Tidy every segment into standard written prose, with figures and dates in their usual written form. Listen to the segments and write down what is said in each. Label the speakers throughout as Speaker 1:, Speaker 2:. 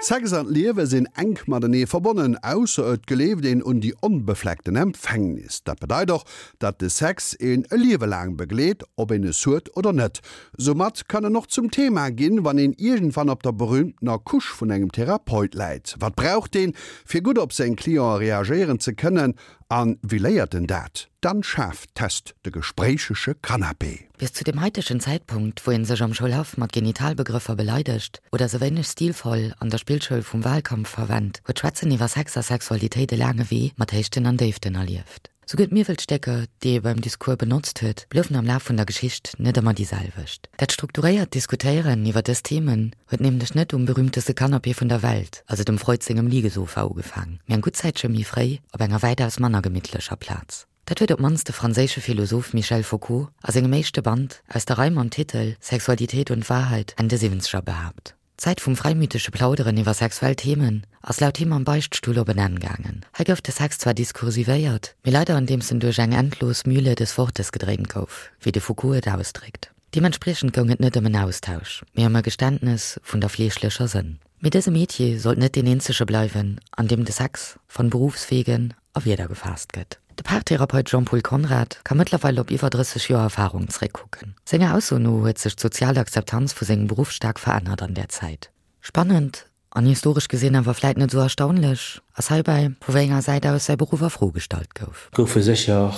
Speaker 1: Sex an d'Liewe sinn enk matenee verbonnen, ausser et gleeft een un déi onbefleckten Empfängnis. Dat bedeit och, datt de Sex een e Liewe laang begleet, ob een es huet oder net. Soumat kann en och zum Thema ginn, wann een iergendwann op der berühmtener Couche vun engem Therapeut läit. Wat braucht deen, fir gutt op seng Cliente reagéieren ze kënnen? An wéi léiert en dat? D'Anne Schaaf test de gespréichege Canapé.
Speaker 2: Bis zu dem haitegen Zäitpunkt, wou een sech am Schoulhaff mat Genitalbegrëffer beleidegt oder se wéineg stilvoll an der Spillschoul vum Wahlkampf verwennt, huet d'Schwätzen iwwer Sex a Sexualitéit e laange Wee mat Héichten an Déiften erlieft. Souguer d'Miwwelstécker, déi ee beim Discours benotzt huet, bloufen am Laf vun der Geschicht net ëmmer déi selwecht. Dat strukturéiert Diskutéieren iwwer dës Themen huet nämlech net um berühmteste Canapé vun der Welt, also dem Freud sengem Liegesofa ugefaang, mee eng gutt Zäitche méi fréi op enger wäitaus manner gemittlecher Plaz. Dat huet op d'mannst de franséische Philosoph Michel Foucault a sengem éischte Band aus der Rei mam Titel Sexualität und Wahrheit Enn de Siwwenzeger behaapt. D'Zäit vum fräimütege Plauderen iwwer sexuell Themen ass laut him am Beichtstull op en Enn gaangen. Hei gouf de Sex zwar diskursivéiert, mee leider andeems en duerch eng endlos Mühle des Wortes gedréint gouf, wéi de Foucault et ausdréckt. Deementspriechend goung et net ëm en Austausch, mee ëm e Geständnes vun der fleeschlecher Sënn. Mee dëse Metier sollt net deen eenzege bleiwen, an deem de Sex von Berufswegen a Wierder gefaasst gëtt. De Paartherapeut Jean-Paul Conrad ka mëttlerweil op iwwer 30 Joer Erfarung zeréckkucken. Senger Ausso no huet sech d'sozial Akzeptanz vu sengem Beruff staark verännert an där Zäit. Spannend, an historesch gesinn awer vläit net esou erstaunlech, ass heibäi, vu wéi enger Säit aus säi Beruff a Fro gestallt gouf.
Speaker 3: Goufe sécher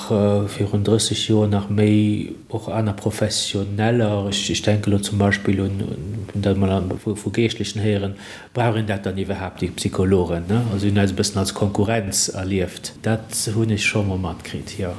Speaker 3: virun 30 Joer nach méi och aner Professioneller, ech denke lo zum Beispill un, hunn dat emol vu Geeschtlechen héieren, brauch een dat dann iwwerhaapt, déi Psychologen, ne? Also hunn eis e bëssen als Konkurrenz erlieft. Dat hunn ech scho mol matkritt, jo.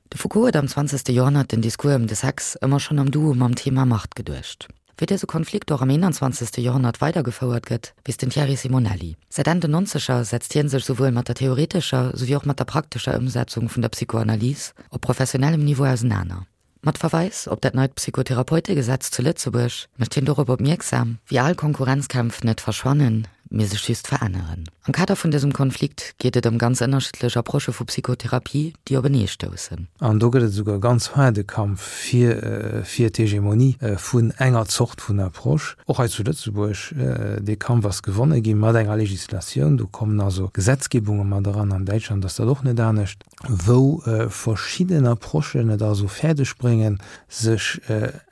Speaker 2: De Foucault huet am zwanzegste Joerhonnert den Discours ëm de Sex ëmmer schonn am Duo mam Thema Macht geduecht. Wéi dëse Konflikt och am eenanzwanzegste Joerhonnert weidergefouert gëtt, weess den Thierry Simonelli. Säit Enn den Nonzeger setzt hien sech souwuel mat der theoretescher souwéi och mat der praktescher Ëmsetzung vun der Psychoanalys op professionellem Niveau ausenaner. Mat Verweis op dat neit Psychotherapeutegesetz zu Lëtzebuerg mécht hien dorop opmierksam, wéi al Konkurrenzkämpf net verschwannen, mee sech just veränneren. Am Kader vun dësem Konflikt geet et ëm ganz ënnerschiddlech Approchë vu Psychotherapie, déi openee stoussen.
Speaker 4: An do gëtt et esouguer e ganz haarde Kampf fir fir d'Hegemonie vun enger Zort vun Approche, och hei zu Lëtzebuerg. Dee Kampf ass gewonne gi mat enger Legislatioun. Do kommen also Gesetzgebunge mat eran. An Däitschland ass dat och net anescht, wou verschidden Approchen et also fäerdeg bréngen, sech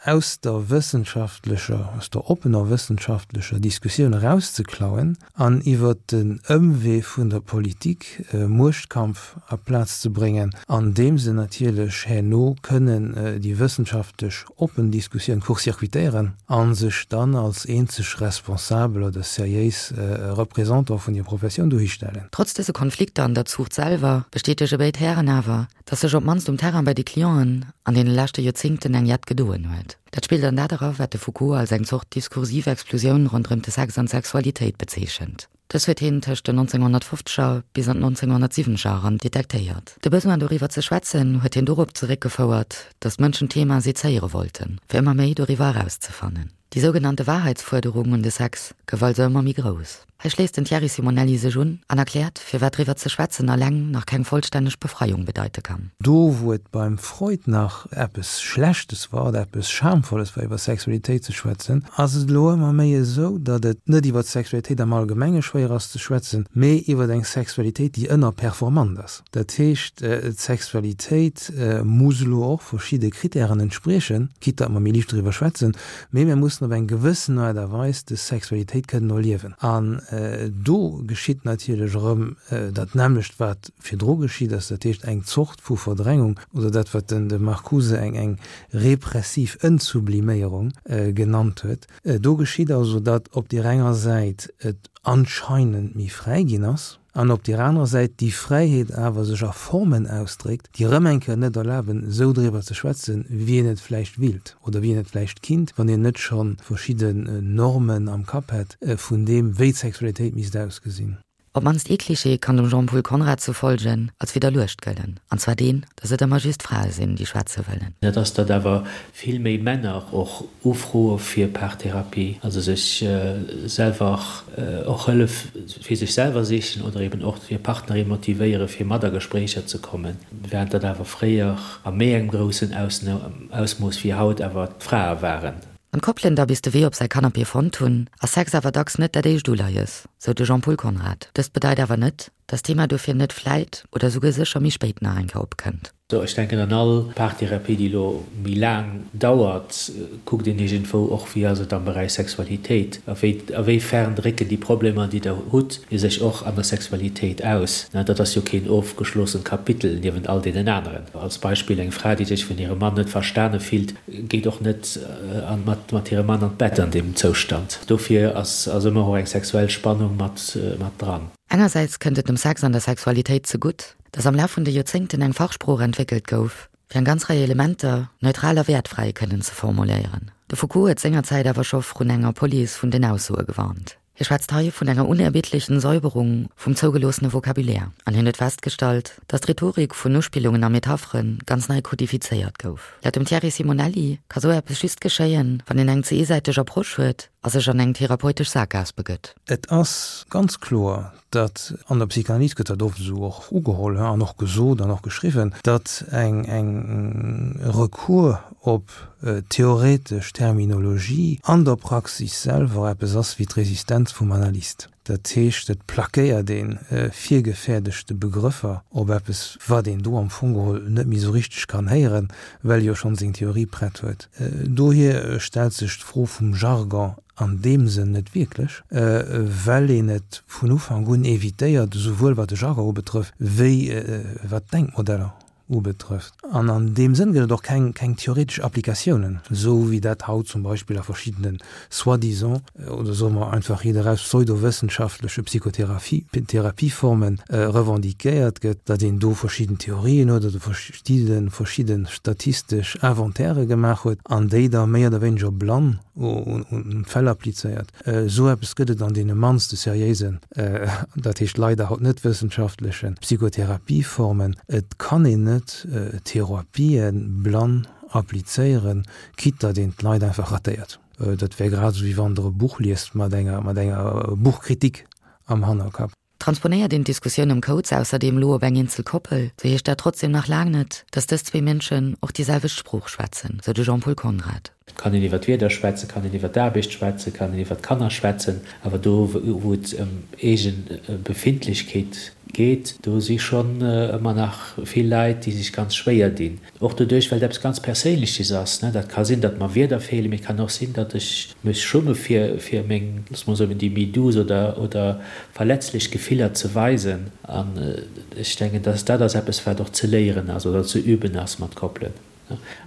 Speaker 4: aus der wëssenschaftlecher, aus der oppener wëssenschaftlecher Diskussioun erauszeklauen an iwwert den Ëmwee vun der Politik e Muechtkampf a Plaz ze bréngen, an deem se natierlech herno kënnen déi wëssenschaftlech oppen Diskussioun court-circuitéieren a sech dann als eenzeg responsabel oder seriéis Représentant vun hir Professioun dohistellen.
Speaker 2: Trotz dëse Konflikter an der Zuucht selwer bestätege béid Hären awer, dass sech op d'mannst um Terrain bei de Clienten an deene leschte Joerzéngten eng jett gedoen huet. Dat spillt an dat era, wat de Foucault als eng Zort diskursiv Explosioun ronderëm de Sex an d'Sexualitéit bezeechent. Dës huet hien tëscht den 1950er bis an d'Nonzénghonnertsiwwenzeger eran detektéiert. De Besoin doriwwer ze schwätzen huet hien dorop zeréckgefouert, dass d'Mënschen d'Thema sezéiere wollten, fir ëmmer méi doriwwer erauszefannen. Déi sougenannte Wahrheitsfuerderung un de Sex gouf also ëmmer méi grouss. Hei schléisst den Thierry Simonelli sech un an erkläert, firwat driwwer ze schwätzen alleng nach keng vollstänneg Befreiung bedeite kann.
Speaker 4: Do wou et beim Freud nach eppes Schlechtes war oder eppes Schamvolles war iwwer Sexualitéit ze schwätzen, ass et elo ëmmer méi esou, datt et net iwwer d'Sexualitéit am Allgemenge schwéier ass ze schwätzen, mee iwwer eng Sexualitéit déi ënnerperformant ass. Dat heescht, d'Sexualitéit muss elo och verschidde Kritären entspriechen, quitte datt mer méi liicht doriwwer schwätzen, Mee mir mussen op eng gewëssen Aart a Weis des Sexualitéit kënnen erliewen. An do geschitt natierlech erëm dat nämmlecht, wat virdru geschitt ass, dat heescht eng Zort vu Verdrängung oder dat, wat den de Marcuse eng eng repressiv Entsubliméierung genannt huet. Do geschitt also, datt op deer enger Säit et anscheinend méi fräi ginn ass, an op deer anerer Säit déi Fräiheet awer sech a Formen ausdréckt, déi erëm eng Kéier net erlaben, esou driwwer ze schwätzen, wéi een et vläicht willt oder wéi een et vläicht kinnt, wann een net scho verschidden Normen am Kapp hätt vun deem, wéi d'Sexualitéit misst ausgesinn.
Speaker 2: Op d'mannst ee Klischee kann dem Jean-Paul Conrad zu folge als widderluecht gëllen, an zwar deen, datt et ëmmer just Frae sinn, déi schwätze wëllen.
Speaker 3: Dat ass, datt awer vill méi Männer och ufroe fir Paartherapie, also sech selwer och Hëllef fir sech selwer sichen oder eben och hir Partnerin motivéiere fir mat a Gespréicher ze kommen, während dat awer fréier a méi engem groussen Ausmooss wéi haut awer d'Frae waren.
Speaker 2: Wann d'Koppelen da bis de Wee op säi Canapé fonnt hunn, ass Sex awer dacks net dat éischt Uleies, sou de Jean-Paul Conrad. Dëst bedeit awer net, dass d'Thema dofir net vläit oder souguer sécher méi spéit nach eng Kéier opkënnt.
Speaker 3: Sou, ech denken an all Paartherapie, déi elo méi laang dauert, kuckt een iergendwou och, wéi ass et am Beräich Sexualitéit, a wéi a wéi fern drécken déi Problemer, déi Der hutt, sech och an der Sexualitéit aus. Dat ass jo keen ofgeschlossent Kapitel niewent all deenen aneren. Als Beispill, eng Fra, déi sech vun hirem Mann net verstane fillt, geet och net mat mat hirem Mann an d'Bett an deem Zoustand. Dofir ass ass ëmmer och eng sexuell Spannung mat mat dran.
Speaker 2: Engersäits kënnt et dem Sex an der Sexualitéit zegutt, dass am Laf vun de Joerzéngten eng Fachsprooch entwéckelt gouf, fir eng ganz Rei Elementer neutral a wäertfräi kënnen ze formuléieren. De Foucault huet sengerzäit awer scho vrun enger Police vun den Aussoe gewarnt. Hie schwätzt hei vun enger unerbittlechen Säuberung vum zougeloossene Vocabulaire an hien huet festgestallt, dass d'Rhetorik vun Uspillungen a Metapheren ganz nei kodifizéiert gouf. Laut dem Thierry Simonelli ka sou eppes just geschéien, wann een eng ze eesäiteg Approche huet a sech an eng therapeutesch Saakgaass begëtt.
Speaker 4: Et ass ganz kloer, datt, an der Psychanalyse gëtt dat oft esou och ugeholl an och gesot an och geschriwwen, datt eng eng Recours op theoretesch Terminologie an der Praxis selwer eppes ass wéi d'Resistenz vum Analyst. Dat heescht, et plackéiert ee virgefäerdegte Begrëffer op eppes, wat een do am Fong geholl net méi esou richteg kann héieren, well e jo schonn seng Theorie prett huet. Dohier stellt sech d'Fro vum Jargon an deem Sënn net wierklech, well een et vun Ufank un evitéiert, esouwuel wat de Jargon ubetrëfft, wéi wat d'Denkmodeller ubetrëfft. An an deem Sënn gëtt et och keng keng theoretesch Applikatiounen, esou wéi dat haut zum Beispill a verschiddenen soi-disant, oder soe mer einfach riit eraus, pseudowëssenschaftleche Psychotheraphie, Therapieformen revendiquéiert gëtt, datt een do verschidden Theorien huet oder verschidde verschidde statistesch Inventairë gemaach huet an déi da méi oder wéineger blann un d'Fäll applizéiert. Esou eppes gëtt et an deene mannste seriéisen, dat heescht leider haut net wëssenschaftlechen, Psychotherapieformen. Et kann een net Therapië blann applizéieren, quitte datt een d'Leit einfach ratéiert. Dat wär grad esou wéi wann Der e Buch liest mat enger mat enger Buchkritik am Hannerkapp.
Speaker 2: Transponéiert een d'Diskussioun ëm Codes ausserdeem elo op eng eenzel Koppel, sou heescht dat trotzdem nach laang net, datt dës zwee Mënschen och déi selwecht Sprooch schwätzen, sou de Jean-Paul Conrad.
Speaker 3: Et kann een iwwer d'Wieder schwätzen, kann een iwwer d'Aarbecht schwätzen, kann een iwwer d'Kanner schwätzen, awer do wou et ëm eegen Befindlechkeet geet, do si schonn ëmmer nach vill Leit, déi sech ganz schwéier dinn. Och doduerch, well et eppes ganz Perséinleches ass. Dat ka sinn, datt mer Wierder feelen, mee et kann och sinn, datt ech mech schumme fir, fir meng, loosse mer soen, déi méi douce oder, oder verletzlech Gefiller ze weisen. An ech denken, datt dat ass eppes, wat och ze léieren ass oder ze üben ass mat Koppelen.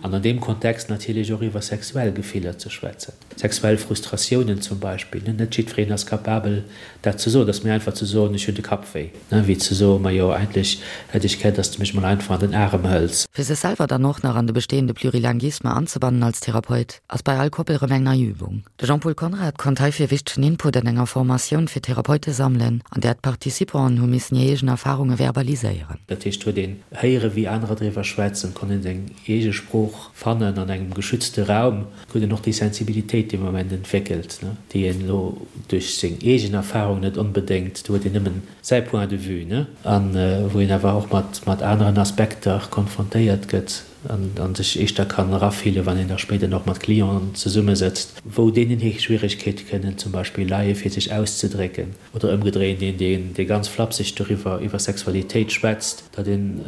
Speaker 3: An an deem Kontext natierlech och iwwer sexuell Gefiller ze schwätzen. Sexuell Frustratiounen zum Beispill, net jiddwereen ass capabel dat ze soen. Et ass méi einfach ze soen, ech hunn de Kapp wéi, wéi ze soen, majo eigentlech hätt ech gär, dass de mech mol einfach an den Arem hëls.
Speaker 2: Fir sech selwer dann och nach an de bestehende Plurilinguisme anzebannen als Therapeut, ass bei all Koppel erëm eng nei Übung. De Jean-Paul Conrad konnt heifir wichtegen Input an enger Formatioun fir Therapeute sammelen, an där d'Participanten hu missen hir eegen Erfarunge verbaliséieren.
Speaker 3: Dat heescht, huet een héiere wéi anerer driwwer schwätzen, konnt een seng eege Sprooch fannen an engem geschützte Raum. Huet en och déi Sensibilitéit dee Moment entwéckelt, déi een elo duerch seng eegen Erfahrung net onbedéngt, do huet een nëmmen säi Point de vue, ne, a wou een awer och mat mat aneren Aspekter konfrontéiert gëtt an sech éischter kann erafillen, wann een da spéider och mat Clienten zesummesëtzt, wou deenen hir Schwieregkeete kënnen zum Beispill leie fir sech auszedrécken. Oder ëmgedréint, een, dee ganz flapseg doriwwer, iwwer Sexualitéit schwätzt, datt een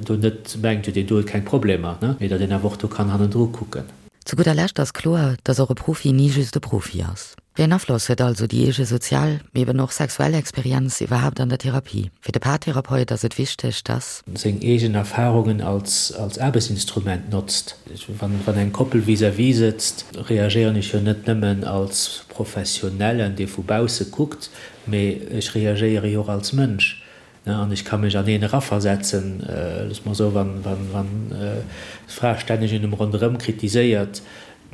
Speaker 3: do net mengt, jo deen do huet keng Problemer, mee datt een awer och do kann hannendru kucken.
Speaker 2: Zu gudder Lescht ass kloer, datt och e Profi ni just e Profi ass. Wéi en Afloss huet also déi eege sozial, mee eben och sexuell Experienz iwwerhaapt an der Therapie? Fir de Paartherapeut ass et wichteg, datt.
Speaker 3: Seng eegen Erfarungen als Aarbechtsinstrument notzt. Wann eng Koppel vis-à-vis sëtzt, reagéieren ech jo net nëmmen als Professionellen, dee vu bausse kuckt, mee ech reagéiere jo och als Mënsch. An ech ka mech an een eraversetzen, loosse mer soen, wann d'Fra stänneg un em ronderëm kritiséiert,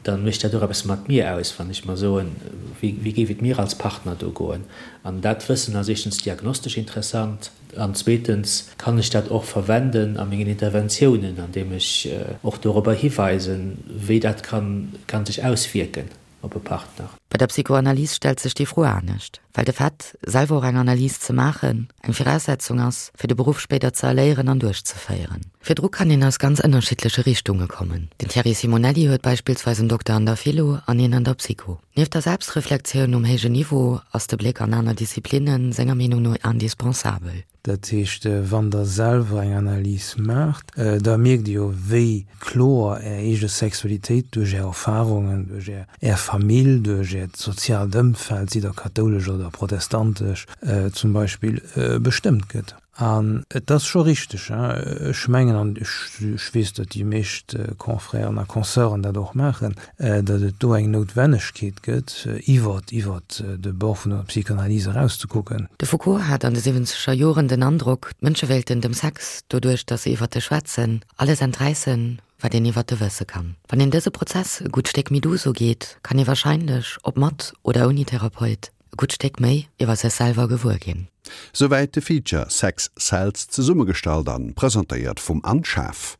Speaker 3: da mécht dat och eppes mat mir aus, wann ech mer soen, wéi géif et mir als Partner do goen. An dat Wëssen ass éischtens diagnostesch interessant an zweetens kann ech dat och verwenden a mengen Interventiounen, andeem ech och dorobber hiweisen, wéi dat kann sech auswierken. op e Partner.
Speaker 2: Bei der Psychoanalyse stellt sech déi Fro anescht, well de Fait, selwer och eng Analys ze maachen, eng Viraussetzung ass, fir de Beruff spéider ze erléieren an duerchzeféieren. Virdru kann een aus ganz ënnerschiddleche Richtunge kommen. Den Thierry Simonelli huet beispillsweis en Dokter an der Philo an een an der Psycho. Nieft der Selbstreflektioun um héijen Niveau ass de Bléck an aner Disziplinne senger Meenung no indispensabel.
Speaker 4: Dat heescht, wann Der selwer eng Analys maacht, da mierkt Dir jo, wéi kloer Är eege Sexualitéit duerch Är Erfarungen, duerch Är Famill, duerch Äert soziaalt Ëmfeld, sidd Der kathoulesch oder protestantesch zum Beispill, bestëmmt gëtt. An et ass scho richteg, ech mengen, an ech weess, datt déi meescht Confrèren a Consœuren dat och maachen, datt et do eng Noutwennegkeet gëtt, iwwer iwwer de Bord vun der Psychanalyse
Speaker 2: erauszekucken. De Foucault hat an de siwwenzeger Joren den Androck, d'Mënsche wéilten dem Sex, doduerch datt se iwwer e schwätzen, alles enträissen, wat een iwwer e wësse kann. Wann een dëse Prozess e gutt Stéck méi duuss ugeet, kann ee warscheinlech, ob mat oder ouni Therapeut, e gutt Stéck méi iwwer sech selwer gewuer ginn.
Speaker 1: Souwäit de Feature Sex Sells, zesummegestallt an presentéiert vum Anne Schaaf.